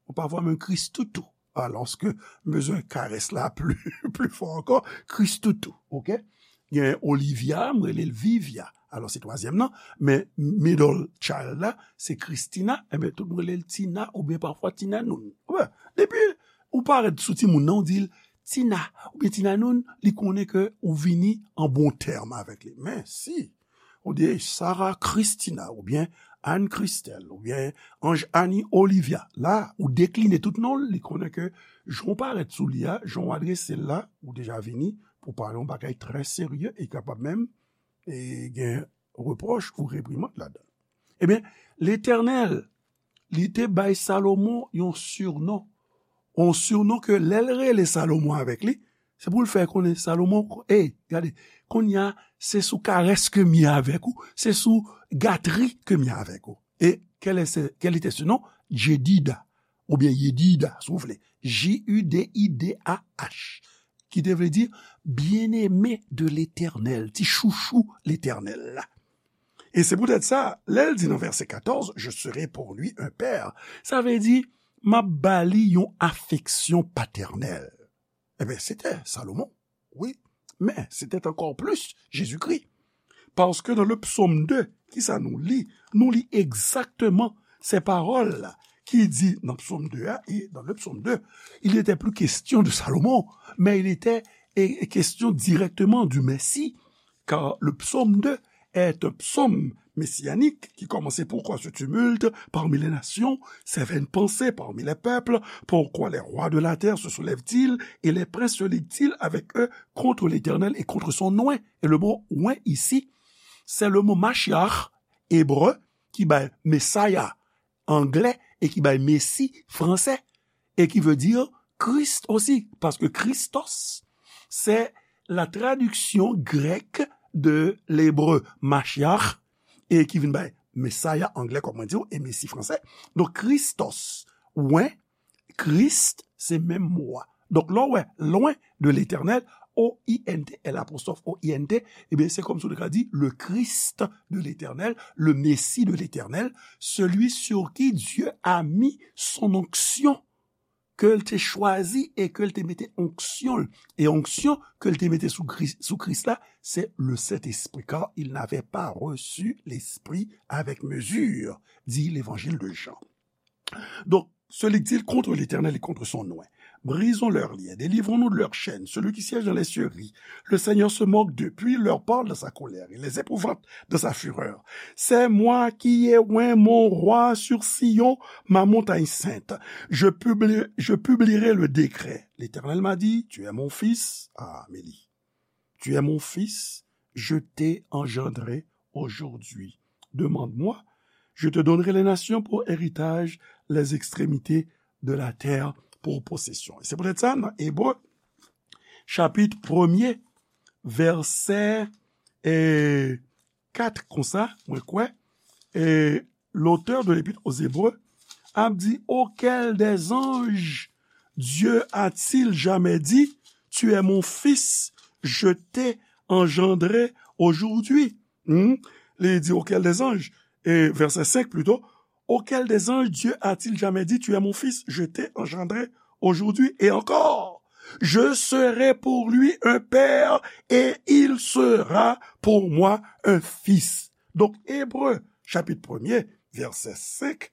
Ou pafwa menm Kristoutou. Alòske m bezwen karès la pli, pli fò ankò, Kristoutou, oke? Gen Olivia, m rele l Vivia. Alò, se twazyèm nan, men middle child la, se Christina, enben, tout moun rele l Tina, oubyen pafwa Tina Noun. Wè, depi ou parèt sou timoun nan, ou di l Tina, oubyen Tina Noun, li konnen ke ou vini an bon tèm avèk li. Men si ou di Sarah Christina, oubyen Anne Christelle, oubyen Ange Annie Olivia, la, ou dekline tout non l, li konnen ke jan w parèt sou li a, jan w adrese l la, ou deja vini pou pale yon bagay trè serye e kapab menm, e, gen repwòch ou reprimand ladan l. Ebyen, Letènèl, li te bay Salomon yon sinon. Yon sinon ke lè l rele Salomon avèk li, se pou l fè konnen Salomon, ey, gade, kounye a, se sou karès ke m ye avèk ou, se sou gatri ke m ye avèk ou. E quel est ce, quel était ce nom? Jedida, oubyen Yedida, si w vle. J U D I D A H, ki te vle di bien-aimé de l'Éternel, ti chouchou Letènèl la. E se poutèt sa, lè l di nan vèsè katòz, je serai pour lui un père, sa vle di, m ap ba li yon afeksyon patènèl. Ebyen, se te Salomon, wi, men se te ankò plis Jezikri. Paske nan le psaume deux, kisa nou li? Nou li egzakteman se pawòl la ki di nan psaume deux a, et dans le psaume deux, il n'était plus question de Salomon, mais il était, eh, question directement du Messie, car le psaume deux est un psaume messianique qui commençait: Pourquoi ce tumulte parmi les nations, ces vaines pensées parmi les peuples? Pourquoi les rois de la terre se soulèvent-ils et les princes se liguent-ils avec eux contre l'Éternel et contre son oint? Et le mot oint ici, c'est le mot Mashiach, hébreu, ki bay Messiah anglè e ki bay Messi fransè, et qui veut dire Christ aussi, parce que Christos, c'est la traduction grecque de l'hébreu Mashiach, e ki vin bay Messiah anglè, kòm mwen di w, e Messi fransè. Donk, Christos, oint, Christ, se menm mo a. Donk, lè w wè, loin de l'Éternel, O I N T, L apostrophe O I N T, ebyen, se kòmsi w te ka di, le Christ de l'Éternel, le Messie de l'Éternel, celui sur qui Dieu a mis son onction. ke l te chwazi e ke l te mete onksyon l. E onksyon ke l te mete sou Kris, sou Kris la, se le Sentespri, car il n'avait pas reçu l'Esprit avec mesure, dit l'Évangile de Jean. Donc, celui qui dit contre l'Éternel et contre son oint, brisons leurs liens, délivrons-nous de leurs chaînes. Celui qui siège dans les cieux rit. Le Seigneur se moque d'eux, puis il leur parle dans sa colère. Il les épouvante dans sa fureur. C'est moi qui ai oint mon roi sur Sion, ma montagne sainte. Je publi-, je publierai le décret. L'Éternel m'a dit, tu es mon fils. Ah, Amélie. Tu es mon fils, je t'ai engendré aujourd'hui. Demande-moi, je te donnerai les nations pour héritage, les extrémités de la terre pour possession. E se poutèt sa, nan Ebre, chapit premye, vèsè, e, kat konsa, mwen kwè, e, l'auteur de l'Épître aux Hébreux ap di, auquel des anges Dieu a-t-il jamais dit, tu es mon fils, je t'ai engendré aujourd'hui? Hmm? Li di, auquel des anges, e vèsè senk plito, auquel des anges Dieu a-t-il jamais dit, tu es mon fils, je t'ai engendré aujourd'hui? Et encore, je serai pour lui un père et il sera pour moi un fils. Donk, Ebre, chapit premye, vèsè senk,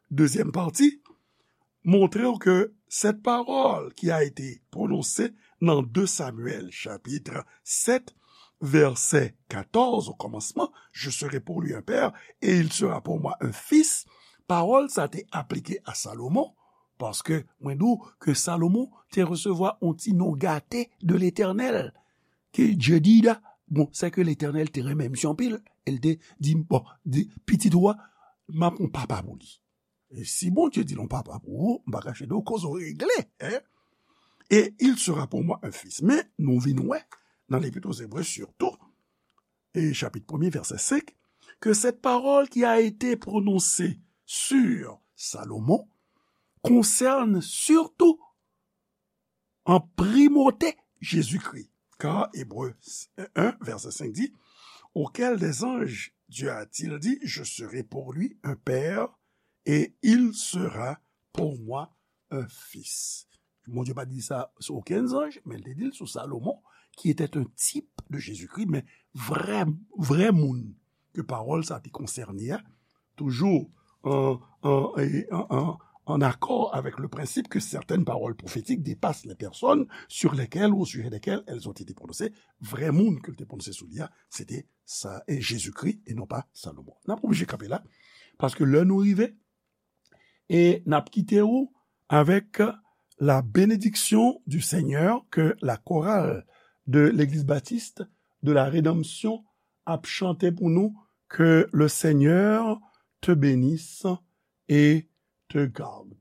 dezyèm pati, montre w ke cette parole qui a été prononcée nan de Samyèl, chapit sèt, vèsè katòz, au commencement, je serai pour lui un père et il sera pour moi un fils, pawòl sa te aplike a Salomon, paske mwen di w ke Salomon te resevwa yon ti non gate de Letènèl, ke Dye di la, bon, se ke Letènèl te renmen misye anpil, e l te di, bon, di, pitit ou a, m ap yon papa pou li. E si Bondye di l yon papa pou ou, m pa kache di w, koze w regle, hein? Et il sera pour moi un fils. Men, nou vin wè, nan Lépître aux Hébreux surtout, e chapit premye, vèsè senk, que cette parole qui a été prononcée sur Salomon concerne surtout en primauté Jésus-Christ. Car Hébreux un, vèsè senk di, auquel des anges Dieu a-t-il dit, je serai pour lui un père et il sera pour moi un fils. Bondye pa di sa sou okenn zanj, men l te di l sou Salomon, qui était un type de Jésus-Christ, men vrè, vrè moun ke pawòl sa te konsène a, toujou en, en, en, en, en accord avec le principe que certaines paroles prophétiques dépassent les personnes sur lesquelles ou au sujet desquelles elles ont été prononcées. Vrè moun ke l te pwononse sou li a, se te sa, e Jezikri, e non pa Salomon. N ap oblije kanpe la, paske lè nou rive, e n ap kite ou avec la bénédiction du Seigneur, que la chorale de l'Église Baptiste de la Rédemption ap chante pou nou, que le Seigneur te bénisse et te garde.